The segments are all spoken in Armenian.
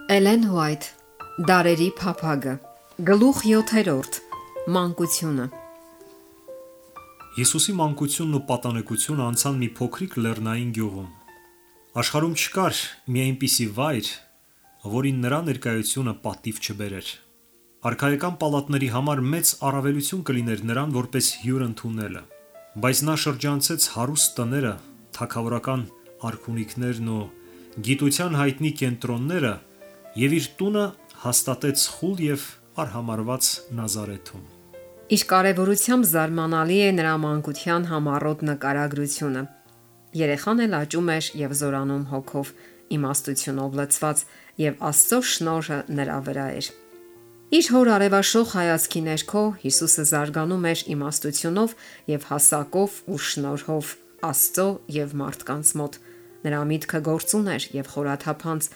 Էլեն Հուայթ Դարերի փափագը Գլուխ 7. Մանկությունը Հիսուսի մանկությունն ու պատանեկությունը անցան մի փոքրիկ լեռնային գյուղում։ Աշխարհում չկար մի այնպիսի վայր, որին նրա ներկայությունը պատիվ չբերեր։ Արքայական պալատների համար մեծ առավելություն կլիներ նրան որպես հյուր ընդունելը, բայց նա շրջանցեց հարուստ տները, թագավորական արքունիքներն ու գիտության հայտնի կենտրոնները և իր տունը հաստատեց խուլ և արհամարհված Նազարեթում։ Իր կարևորությամբ զարմանալի է նրա մանկության համառոտ նկարագրությունը։ Երեխան էլ աճում էր և զորանում հոգով, իմաստությունով լցված, և Աստծո շնորհը նրա վրա էր։ Իր հոր արևաշող հայացքի ներքո Հիսուսը զարգանում էր իմաստությունով և հասակով ու շնորհով Աստծո և մարդկանց մոտ։ Նրա միտքը գործուն էր և խորաթափանց։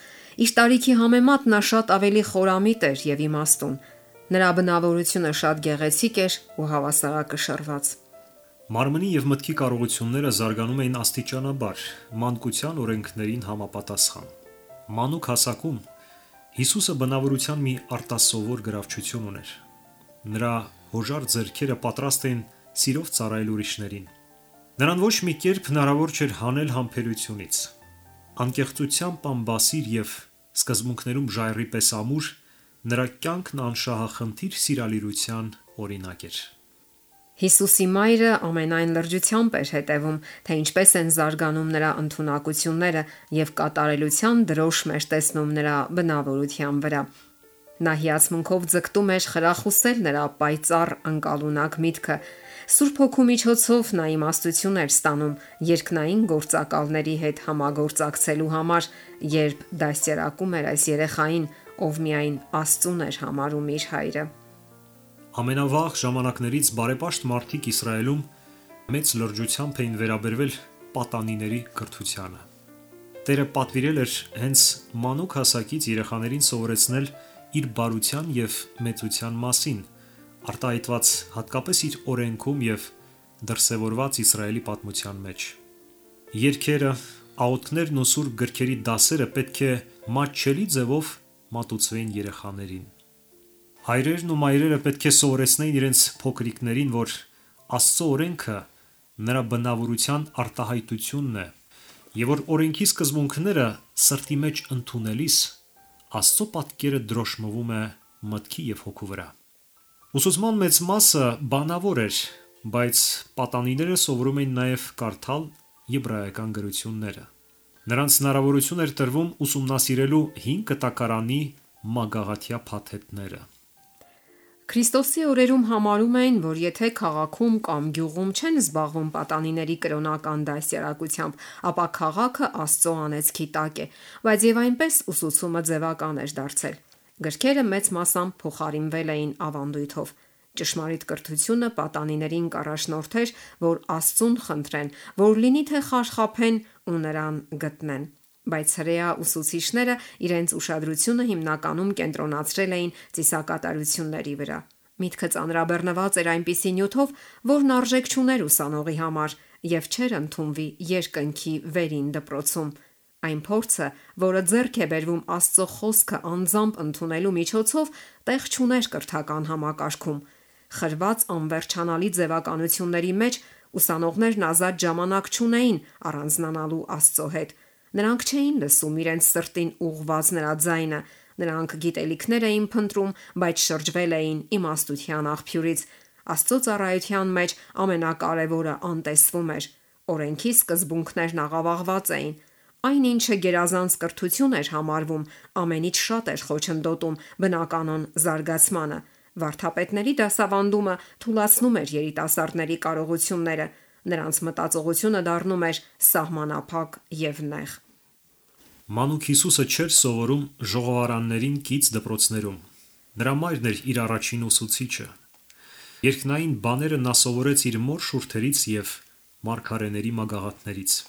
Իր տարիքի համեմատ նա շատ ավելի խորամիտ էր և իմաստուն։ Նրա բնավորությունը շատ գեղեցիկ էր ու հավասարակշռված։ Մարմնի և մտքի կարողությունները զարգանում էին աստիճանաբար, մանկության օրենքներին համապատասխան։ Մանուկ հասակում Հիսուսը բնավորության մի արտասովոր գրավչություն ուներ։ Նրա հոժար ձեռքերը պատրաստ էին սիրով ծառայել ուրիշներին։ Նրան ոչ մի կերպ հնարավոր չէր հանել համբերությունից։ Անկեղծությամբ անբասիր և սկզբունքներում ժայռի պես ամուր, նրա կյանքն անշահախնդիր սիրալիրության օրինակ էր։ Հիսուսի մայրը ամենայն լրջությամբ էր հետևում, թե ինչպես են զարգանում նրա ընդունակությունները և կատարելության դրոշ էր տեսնում նրա բնավորության վրա։ Նա հիացմունքով ձգտում էր խրախուսել նրա պայծառ անկալունակ միտքը։ Սուրբ Հոգու միջոցով նա իմաստություն էր ստանում երկնային գործակալների հետ համագործակցելու համար, երբ դաստիարակում էր այս երեխային, ով միայն Աստծուն էր համարում իր հայրը։ Ամենավաղ ժամանակներից բարեպաշտ մարդիկ Իսրայելում մեծ լրջությամբ էին վերաբերվել պատանիների կրթությանը։ Տերը պատվիրել էր հենց մանուկ հասակից երեխաներին սովորեցնել իր բարության և մեծության մասին, արտահայտված հատկապես իր օրենքում և դրսևորված Իսրայելի պատմության մեջ։ Երգերը, աղոթքներն ու սուրբ գրքերի դասերը պետք է մատչելի ձևով մատուցվեին երեխաներին։ Հայրերն ու մայրերը պետք է սովորեցնեին իրենց փոքրիկներին, որ Աստծո օրենքը նրա բնավորության արտահայտությունն է, և որ օրենքի սկզբունքները սրտի մեջ ընդունելիս Աստծո պատկերը դրոշմվում է մտքի և հոգու վրա։ Ուսուցման մեծ մասը բանավոր էր, բայց պատանիները սովորում էին նաև կարդալ եբրայական գրությունները։ Նրանց հնարավորություն էր տրվում ուսումնասիրելու հին կտակարանի մագաղաթյա փաթեթները։ Քրիստոսի օրերում համարում էին, որ եթե քաղաքում կամ գյուղում չեն զբաղվում պատանիների կրոնական դաստիարակությամբ, ապա քաղաքը Աստծո անեծքի տակ է, բայց եւ այնպես ուսուցումը ձևական էր դարձել։ Գրքերը մեծ մասամբ փոխարինվել էին ավանդույթով։ Ճշմարիտ կրթությունը պատանիներին կառաջնորդեր, որ Աստծուն խնդրեն, որ լինի թե խարխափեն ու նրան գտնեն։ Բայց հրեա ուսուցիչները իրենց ուշադրությունը հիմնականում կենտրոնացրել էին ծիսակատարությունների վրա։ Միտքը ծանրաբեռնված էր այնպիսի նյութով, որն արժեք չուներ ուսանողի համար և չէր ընդունվի երկնքի վերին դպրոցում։ Այն փորձը, որը ձեռք է բերվում Աստծո խոսքը անձամբ ընդունելու միջոցով, տեղ չուներ կրթական համակարգում։ Խրված անվերջանալի ձևականությունների մեջ ուսանողներն ազատ ժամանակ չունեին առանձնանալու Աստծո հետ։ Նրանք չէին լսում իրենց սրտին ուղղված նրա ձայնը, նրանք գիտելիքներ էին փնտրում, բայց շրջվել էին իմաստության աղբյուրից։ Աստծո ծառայության մեջ ամենակարևորը անտեսվում էր։ Օրենքի սկզբունքներն աղավաղված էին։ Այն ինչը գերազանց կրթություն էր համարվում, ամենից շատ էր խոչընդոտում բնականոն զարգացմանը։ Վարդապետների դասավանդումը թուլացնում էր երիտասարդների կարողությունները, նրանց մտածողությունը դառնում էր սահմանափակ և նեղ։ Մանուկ Հիսուսը չէր սովորում ժողովարաններին կից դպրոցներում։ Նրա մայրն էր իր առաջին ուսուցիչը։ Երկնային բաները նա սովորեց իր մոր շուրթերից և մարգարեների մագաղաթներից։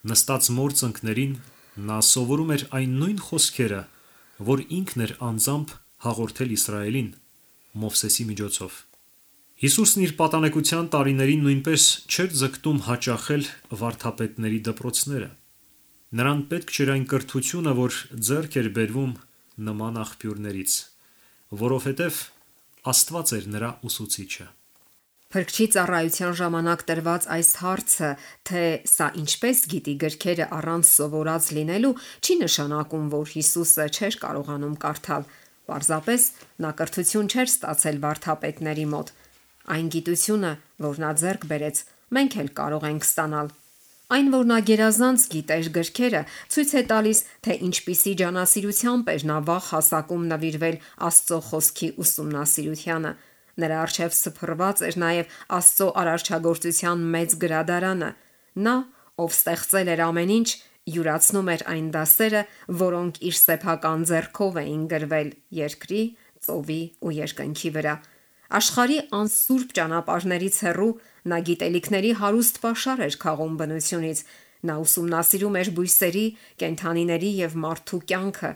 Նստած մոր ծնկներին նա սովորում էր այն նույն խոսքերը, որ ինքն էր անձամբ հաղորդել Իսրայելին Մովսեսի միջոցով։ Հիսուսն իր պատանեկության տարիներին նույնպես չէր ձգտում հաճախել վարդապետների դպրոցները։ Նրան պետք չէր այն կրթությունը, որ ձեռք էր բերվում նման աղբյուրներից, որովհետև Աստված էր նրա ուսուցիչը։ Փրկչի ծառայության ժամանակ տրված այս հարցը, թե սա ինչպես գիտի գրքերը առանց սովորած լինելու, չի նշանակում, որ Հիսուսը չէր կարողանում կարդալ։ Պարզապես նա կրթություն չէր ստացել վարդապետների մոտ։ Այն գիտությունը, որ նա ձեռք բերեց, մենք էլ կարող ենք ստանալ։ Այն, որ նա գերազանց գիտեր գրքերը, ցույց է տալիս, թե ինչպիսի ջանասիրությամբ էր նա վաղ հասակում նվիրվել Աստծո խոսքի ուսումնասիրությանը։ Նրա առջև սփռված էր նաև Աստծո արարչագործության մեծ գրադարանը։ Նա, ով ստեղծել էր ամեն ինչ, յուրացնում էր այն դասերը, որոնք իր սեփական ձեռքով էին գրվել երկրի, ծովի ու երկնքի վրա։ Աշխարհի անսուրբ ճանապարհներից հեռու նա գիտելիքների հարուստ պաշար էր քաղում բնությունից։ Նա ուսումնասիրում էր բույսերի, կենդանիների եւ մարդու կյանքը։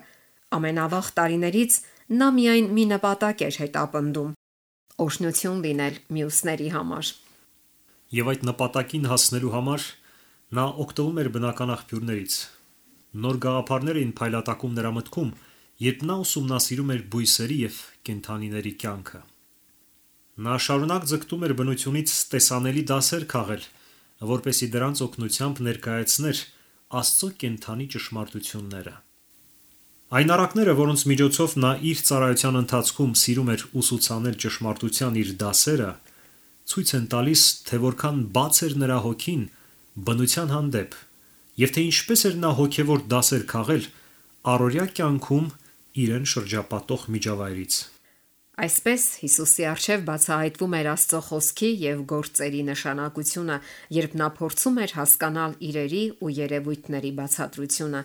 Ամենավաղ տարիներից նա միայն մի նպատակ էր հետապնդում՝ օրհնություն լինել մյուսների համար։ Եվ այդ նպատակին հասնելու համար նա օգտվում էր բնական աղբյուրներից։ Նոր գաղափարներ էին փայլատակում նրա մտքում, երբ նա ուսումնասիրում էր բույսերի եւ կենդանիների կյանքը։ Նա շարունակ ձգտում էր բնությունից տեսանելի դասեր քաղել, որպեսզի դրանց օգնությամբ ներկայացներ Աստծո կենդանի ճշմարտությունները։ Այն առակները, որոնց միջոցով նա իր ծառայության ընթացքում սիրում էր ուսուցանել ճշմարտության իր դասերը, ցույց են տալիս, թե որքան բաց էր նրա հոգին բնության հանդեպ, եւ թե ինչպես էր նա հոգեվոր դասեր քաղել առօրյա կյանքում իրեն շրջապատող միջավայրից։ Այսպես Հիսուսի առջև բացահայտվում էր Աստծո խոսքի եւ գործերի նշանակությունը, երբ նա փորձում էր հասկանալ իրերի ու երևույթների բացատրությունը։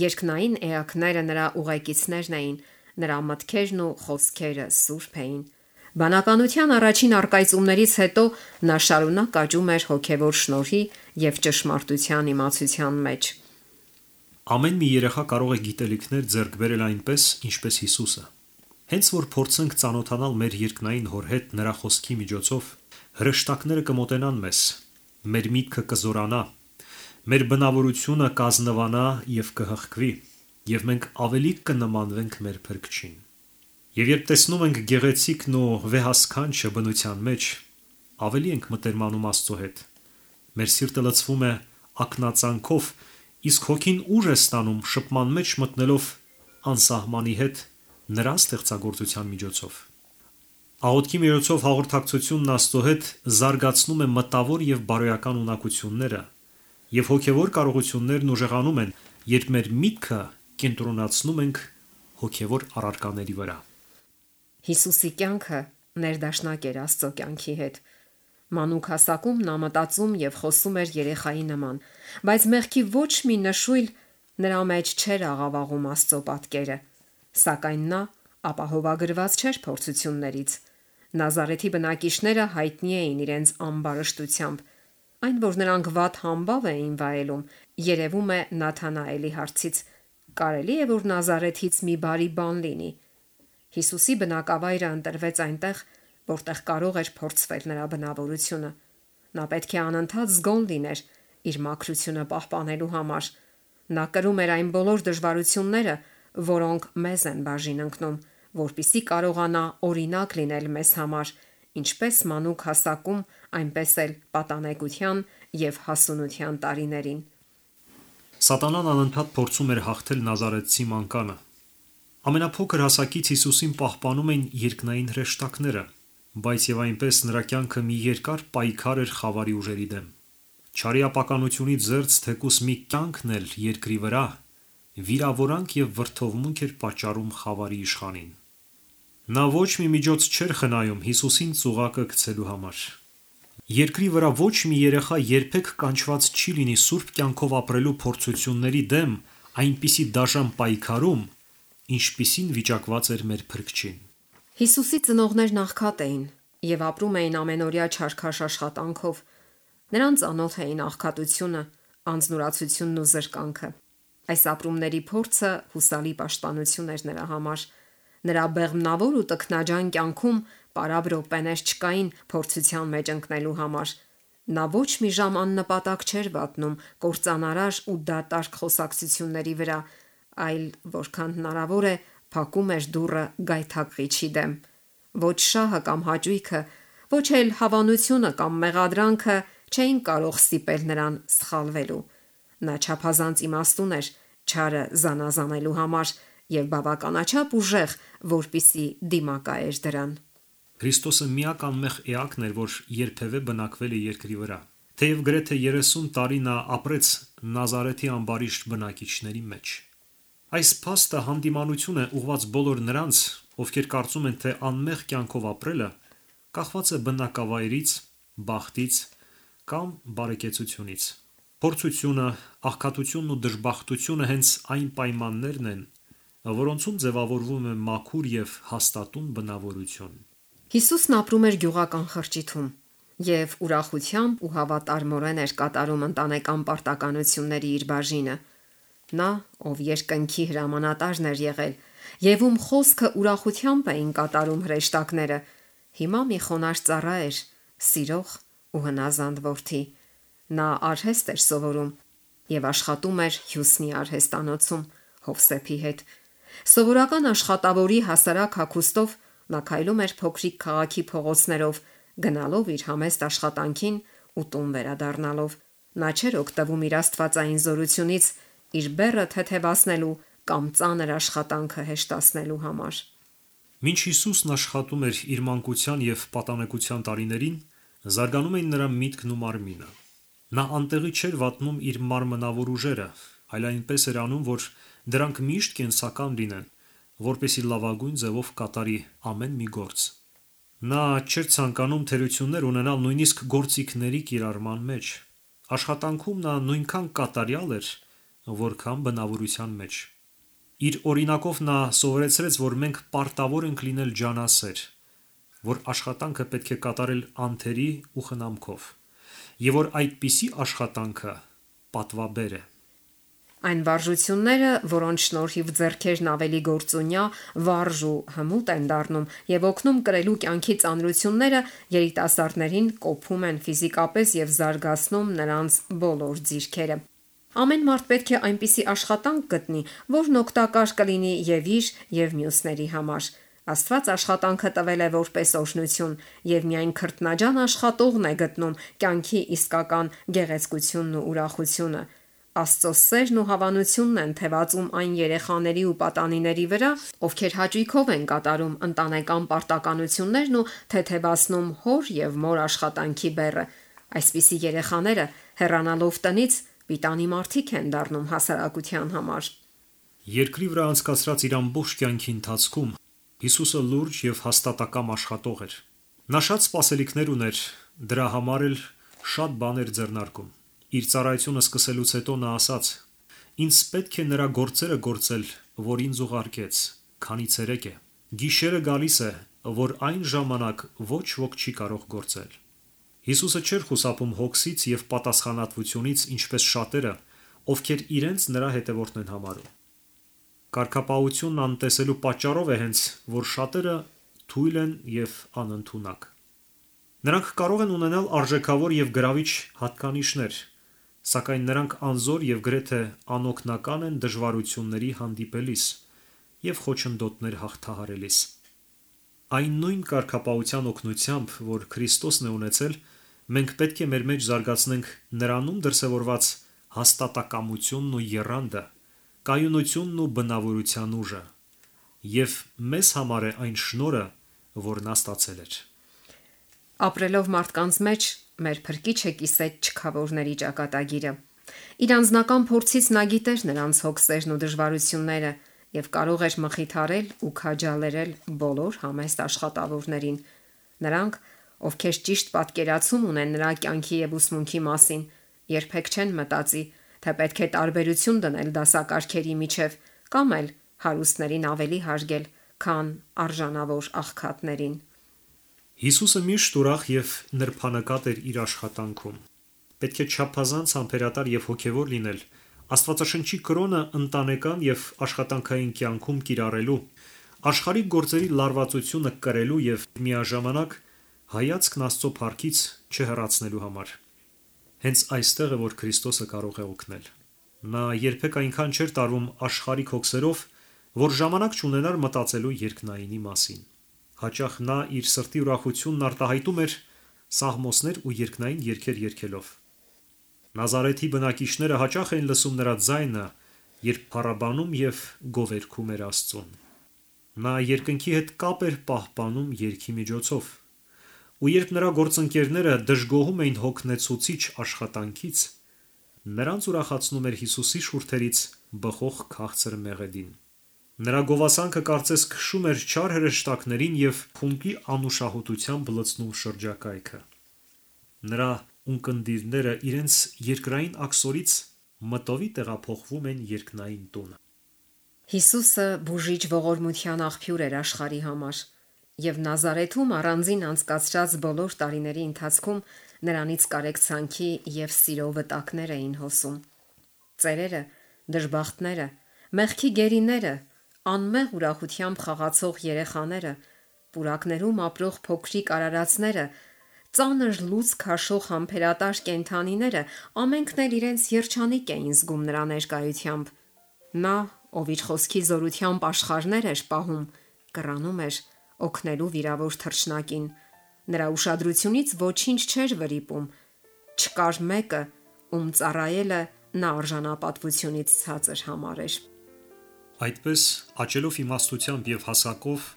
Երկնային էակները նրա ուղեկիցներն էին, նրա մտքերն ու խոսքերը սուրբ էին։ Բանականության առաջին առկայծումներից հետո նա շարունակ աճում էր հոգևոր շնորհի եւ ճշմարտության իմացության մեջ։ Ամեն մի երեխա կարող է գիտելիքներ ձեռք բերել այնպես, ինչպես Հիսուսը։ Հենց որ փորձենք ծանոթանալ մեր երկնային հոր հետ նրա խոսքի միջոցով, հրեշտակները կմոտենան մեզ, մեր միտքը կզորանա, մեր բնավորությունը կազնվանա եւ կհղկվի, եւ մենք ավելի կնմանվենք մեր Փրկչին։ Եվ երբ տեսնում ենք գեղեցիկն ու վեհասքանչը բնության մեջ, ավելի ենք մտերմանում Աստծո հետ։ Մեր սիրտը լցվում է ակնածանքով, իսկ հոգին ուժ է ստանում շփման մեջ մտնելով անսահմանի հետ նրա ստեղծագործության միջոցով։ Աղոթքի միջոցով հաղորդակցությունն Աստծո հետ զարգացնում է մտավոր եւ բարոյական ունակությունները, եւ հոգեվոր կարողություններն ուժեղանում են, երբ մեր միտքը կենտրոնացնում ենք հոգեվոր առարկաների վրա։ Հիսուսի կյանքը ներդաշնակ էր Աստծո կյանքի հետ։ Մանուկ հասակում նա մտածում եւ խոսում էր երեխայի նման, բայց մեղքի ոչ մի նշույլ նրա մեջ չէր աղավաղում Աստծո պատկերը։ Սակայն նա ապահովագրված չէր փորձություններից։ Նազարեթի բնակիչները հայտնի էին իրենց ամբարշտությամբ։ Այն, որ նրանք վատ համբավ էին վայելում, երևում է Նաթանաելի հարցից. կարելի է, որ Նազարեթից մի բարի բան լինի։ Հիսուսի բնակավայրը ընտրվեց այնտեղ, որտեղ կարող էր փորձվել նրա բնավորությունը։ Նա պետք է անընդհատ զգոն լիներ իր մաքրությունը պահպանելու համար։ Նա կրում էր այն բոլոր դժվարությունները, որոնք մեզ են բաժին ընկնում, որպիսի կարողանա օրինակ լինել մեզ համար, ինչպես մանուկ հասակում, այնպես էլ պատանեկության եւ հասունության տարիներին։ Սատանան անընդհատ փորձում էր հաղթել Նազարեթցի մանկանը։ Ամենափոքր հասակից Հիսուսին պահպանում էին երկնային հրեշտակները, բայց եւ այնպես նրա կյանքը մի երկար պայքար էր խավարի ուժերի դեմ։ Չարի ապականությունից զերծ թեկուս մի կյանքն էլ երկրի վրա վիրավորանք եւ վրթովմունք էր պատճառում խավարի իշխանին։ Նա ոչ մի միջոց չէր խնայում Հիսուսին ծուղակը գցելու համար։ Երկրի վրա ոչ մի երեխա երբեք կանչված չի լինի սուրբ կյանքով ապրելու փորձությունների դեմ այնպիսի դաժան պայքարում, ինչպիսին վիճակված էր մեր Փրկչին։ Հիսուսի ծնողներն աղքատ էին եւ ապրում էին ամենօրյա չարքաշ աշխատանքով։ Նրանց անոթ էին աղքատությունը, անձնուրացությունն ու զրկանքը։ Այս ապրումների փորձը հուսալի պաշտպանություն էր նրա համար։ Նրա բեղմնավոր ու տքնաջան կյանքում պարաբ րոպեներ չկային փորձության մեջ ընկնելու համար։ Նա ոչ մի ժամ աննպատակ չէր վատնում կործանարար ու դատարկ խոսակցությունների վրա, այլ որքան հնարավոր է փակում էր դուռը գայթակղիչի դեմ։ Ոչ շահը կամ հաճույքը, ոչ էլ հավանությունը կամ մեղադրանքը չէին կարող ստիպել նրան սխալվելու։ Նա չափազանց իմաստուն էր չարը զանազանելու համար եւ բավականաչափ ուժեղ, որպիսի դիմակայեր դրան։ Քրիստոսը միակ անմեղ էակն էր, որ երբևէ բնակվել է երկրի վրա։ Թեև գրեթե 30 տարի նա ապրեց Նազարեթի ամբարիշտ բնակիչների մեջ։ Այս փաստը հանդիմանություն է ուղղված բոլոր նրանց, ովքեր կարծում են, թե անմեղ կյանքով ապրելը կախված է բնակավայրից, բախտից կամ բարեկեցությունից։ Փորձությունը, աղքատությունն ու դժբախտությունը հենց այն պայմաններն են, որոնցում ձևավորվում է մաքուր եւ հաստատուն բնավորություն։ Հիսուսն ապրում էր գյուղական խրճիթում եւ ուրախությամբ ու հավատարմորեն էր կատարում ընտանեկան պարտականությունների իր բաժինը։ Նա, ով երկնքի հրամանատարն էր եղել եւ ում խոսքը ուրախությամբ էին կատարում հրեշտակները, հիմա մի խոնարհ ծառա էր, սիրող ու հնազանդ որդի։ Նա արհեստ էր սովորում եւ աշխատում էր Հյուսնի արհեստանոցում Հովսեփի հետ։ Սովորական աշխատավորի հասարակ հագուստով նա քայլում էր փոքրիկ քաղաքի փողոցներով, գնալով իր համեստ աշխատանքին ու տուն վերադառնալով։ Նա չէր օգտվում իր աստվածային զորությունից իր բեռը թեթևացնելու կամ ծանր աշխատանքը հեշտացնելու համար։ Մինչ Հիսուսն աշխատում էր իր մանկության եւ պատանեկության տարիներին, զարգանում էին նրա միտքն ու մարմինը։ Նա անտեղի չէր վատնում իր մարմնավոր ուժերը, այլ այնպես էր անում, որ դրանք միշտ կենսական լինեն, որպեսզի լավագույն ձևով կատարի ամեն մի գործ։ Նա չէր ցանկանում թերություններ ունենալ նույնիսկ գործիքների կիրառման մեջ։ Աշխատանքում նա նույնքան կատարյալ էր, որքան բնավորության մեջ։ Իր օրինակով նա սովորեցրեց, որ մենք պարտավոր ենք լինել ջանասեր, որ աշխատանքը պետք է կատարել անթերի ու խնամքով, եւ որ այդպիսի աշխատանքը պատվաբեր է։ Այն վարժությունները, որոնց շնորհիվ ձեռքերն ավելի գործունյա, վարժ ու հմուտ են դառնում եւ օգնում կրելու կյանքի ծանրությունները, երիտասարդներին կոփում են ֆիզիկապես եւ զարգացնում նրանց բոլոր ձիրքերը։ Ամեն մարդ պետք է այնպիսի աշխատանք գտնի, որն օգտակար կլինի եւ իր եւ մյուսների համար։ Աստված աշխատանքը տվել է որպես օրհնություն, եւ միայն քրտնաջան աշխատողն է գտնում կյանքի իսկական գեղեցկությունն ու ուրախությունը։ Աստծո սերն ու հավանությունն են թևածում այն երեխաների ու պատանիների վրա, ովքեր հաճույքով են կատարում ընտանեկան պարտականություններն ու թեթևացնում հոր եւ մոր աշխատանքի բեռը։ Այսպիսի երեխաները, հեռանալով տնից, պիտանի մարդիկ են դառնում հասարակության համար։ Երկրի վրա անցկացրած իր ամբողջ կյանքի ընթացքում Հիսուսը լուրջ եւ հաստատակամ աշխատող էր։ Նա շատ սպասելիքներ ուներ, դրա համար էլ շատ բաներ ձեռնարկում։ Իր ծառայությունը սկսելուց հետո նա ասաց. «Ինձ պետք է նրա գործերը գործել, որ ինձ ուղարկեց, քանի ցերեկ է։ Գիշերը գալիս է, որ այն ժամանակ ոչ ոք չի կարող գործել»։ Հիսուսը չէր խուսափում հոգսից եւ պատասխանատվությունից, ինչպես շատերը, ովքեր իրենց նրա հետևորդն են համարում։ Կարգապահությունն անտեսելու պատճառով է հենց, որ շատերը թույլ են եւ անընդունակ։ Նրանք կարող են ունենալ արժեքավոր եւ գրավիչ հատկանիշներ, սակայն նրանք անզոր եւ գրեթե անօգնական են դժվարությունների հանդիպելիս եւ խոչընդոտներ հաղթահարելիս։ Այն նույն կարգապահության օգնությամբ, որ Քրիստոսն է ունեցել, մենք պետք է մեր մեջ զարգացնենք նրանում դրսևորված հաստատակամությունն ու եռանդը, կայունությունն ու բնավորության ուժը, եւ մեզ համար է այն շնորհը, որ նա ստացել էր։ Ապրելով մարդկանց մեջ մեր Փրկիչը կիսեց չքավորների ճակատագիրը։ Իր անձնական փորձից նա գիտեր նրանց հոգսերն ու դժվարությունները եւ կարող էր մխիթարել ու քաջալերել բոլոր համեստ աշխատավորներին։ Նրանք, ովքեր ճիշտ պատկերացում ունեն նրա կյանքի եւ ուսմունքի մասին, երբեք չեն մտածի, թե պետք է տարբերություն դնել դասակարգերի միջև կամ էլ հարուստներին ավելի հարգել, քան արժանավոր աղքատներին։ Հիսուսը միշտ ուրախ եւ նրբանկատ էր իր աշխատանքում։ Պետք է չափազանց համբերատար եւ հոգեվոր լինել Աստվածաշնչի կրոնը ընտանեկան եւ աշխատանքային կյանքում կիրառելու, աշխարհիկ գործերի լարվածությունը կրելու եւ միաժամանակ հայացքն Աստծո փառքից չհեռացնելու համար։ Հենց այստեղ է, որ Քրիստոսը կարող է օգնել։ Նա երբեք այնքան չէր տարվում աշխարհիկ հոգսերով, որ ժամանակ չունենար մտածելու երկնայինի մասին։ Հաճախ նա իր սրտի ուրախությունն արտահայտում էր սաղմոսներ ու երկնային երգեր երգելով։ Նազարեթի բնակիչները հաճախ էին լսում նրա ձայնը, երբ փառաբանում եւ գովերգում էր Աստծուն։ Նա երկնքի հետ կապ էր պահպանում երգի միջոցով։ Ու երբ նրա գործընկերները դժգոհում էին հոգնեցուցիչ աշխատանքից, նրանց ուրախացնում էր Հիսուսի շուրթերից բխող քաղցր մեղեդին։ Նրա գովասանքը կարծես քշում էր չար հրեշտակներին եւ փունկի անուշահոտությամբ լցնում շրջակայքը։ Նրա ունկնդիրները իրենց երկրային աքսորից մտովի տեղափոխվում են երկնային տունը։ Հիսուսը բուժիչ ողորմության աղբյուր էր աշխարհի համար, եւ Նազարեթում առանձին անցկացրած բոլոր տարիների ընթացքում նրանից կարեկցանքի եւ սիրո վտակներ էին հոսում։ Ծերերը, դժբախտները, մեղքի գերիները, անմեղ ուրախությամբ խաղացող երեխաները, պուրակներում ապրող փոքրիկ արարածները, ծանր լույս քաշող համբերատար կենդանիները ամենքն էլ իրենց երջանիկ էին զգում նրա ներկայությամբ։ Նա, ով իր խոսքի զորությամբ աշխարհներ էր պահում, կռանում էր օգնելու վիրավոր թռչնակին։ Նրա ուշադրությունից ոչինչ չէր վրիպում։ Չկար մեկը, ում ծառայելը նա արժանապատվությունից ցածր համարեր։ Այդպես, աճելով իմաստությամբ եւ հասակով,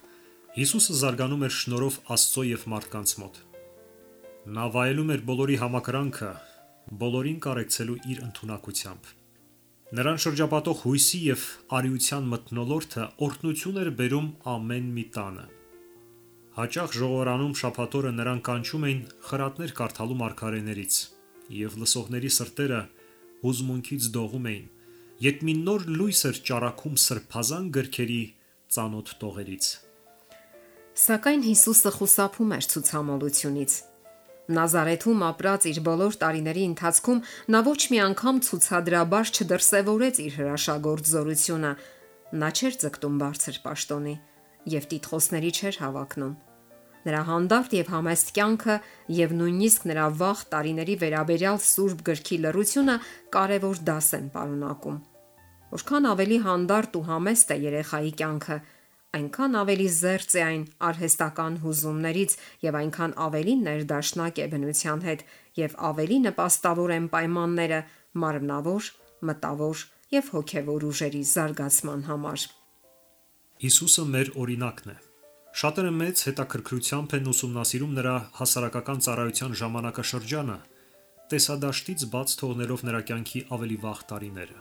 Հիսուսը զարգանում էր շնորհով Աստծո եւ մարդկանց մոտ։ Նա վայելում էր բոլորի համակրանքը, բոլորին կարեկցելու իր ընդունակությամբ։ Նրան շրջապատող հույսի եւ արիության մթնոլորտը օրհնություն էր բերում ամեն մի տանը։ Հաճախ ժողովրանում շաբաթօրը նրան կանչում էին խրատներ կարդալու մարգարեներից, եւ լսողների սրտերը հուզմունքից դողում էին, երբ մի նոր լույս էր ճառագում սրբազան գրքերի ծանոթ տողերից։ Սակայն Հիսուսը խուսափում էր ցուցամոլությունից։ Նազարեթում ապրած իր բոլոր տարիների ընթացքում նա ոչ մի անգամ ցուցադրաբար չդրսևորեց իր հրաշագործ զորությունը։ Նա չէր ձգտում բարձր պաշտոնի եւ տիտղոսների չէր հավակնում։ Նրա հանդարտ եւ համեստ կյանքը եւ նույնիսկ նրա վաղ տարիների վերաբերյալ Սուրբ գրքի լռությունը կարևոր դաս են պարունակում։ Որքան ավելի հանդարտ ու համեստ է երեխայի կյանքը, այնքան ավելի զերծ է այն արհեստական հուզումներից եւ այնքան ավելի ներդաշնակ է բնության հետ եւ ավելի նպաստավոր են պայմանները մարմնավոր, մտավոր եւ հոգեվոր ուժերի զարգացման համար։ Հիսուսը մեր օրինակն է։ Շատերը մեծ հետաքրքրությամբ են ուսումնասիրում նրա հասարակական ծառայության ժամանակաշրջանը, տեսադաշտից բաց թողնելով նրա կյանքի ավելի վաղ տարիները։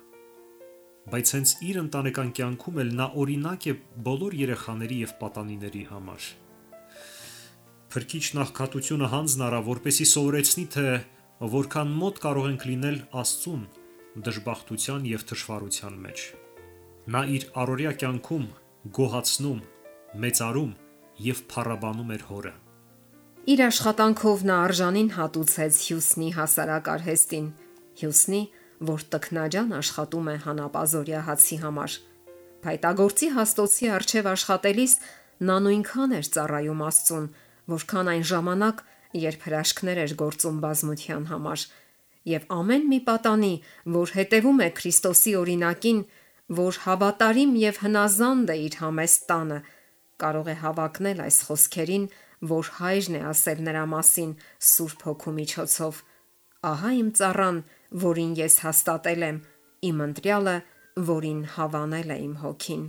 Բայց հենց իր ընտանեկան կյանքում էլ նա օրինակ է բոլոր երեխաների եւ պատանիների համար։ Փրկիչ նախքատությունը հանձն առա, որպեսզի սովորեցնի, թե որքան մոտ կարող ենք լինել Աստծուն դժբախտության եւ թշվառության մեջ։ Նա իր առօրյա կյանքում գոհացնում, մեծարում եւ փառաբանում էր Հորը։ Իր աշխատանքով նա արժանին հատուցեց Հյուսնի հասարակ արհեստին, Հյուսնի, որ տքնաջան աշխատում է հանապազորյա հացի համար։ Փայտագործի հաստոցի արչև աշխատելիս նա նույնքան էր ծառայում Աստծուն, որքան այն ժամանակ, երբ հրաշքներ էր գործում բազմության համար, եւ ամեն մի պատանի, որ հետևում է Քրիստոսի օրինակին, որ հավատարիմ եւ հնազանդ է իր համեստ տանը, կարող է հավակնել այս խոսքերին, որ Հայրն է ասել նրա մասին Սուրբ Հոգու միջոցով. «Ահա իմ ծառան, որին ես հաստատել եմ, իմ ընտրյալը, որին հավանել է իմ Հոգին»։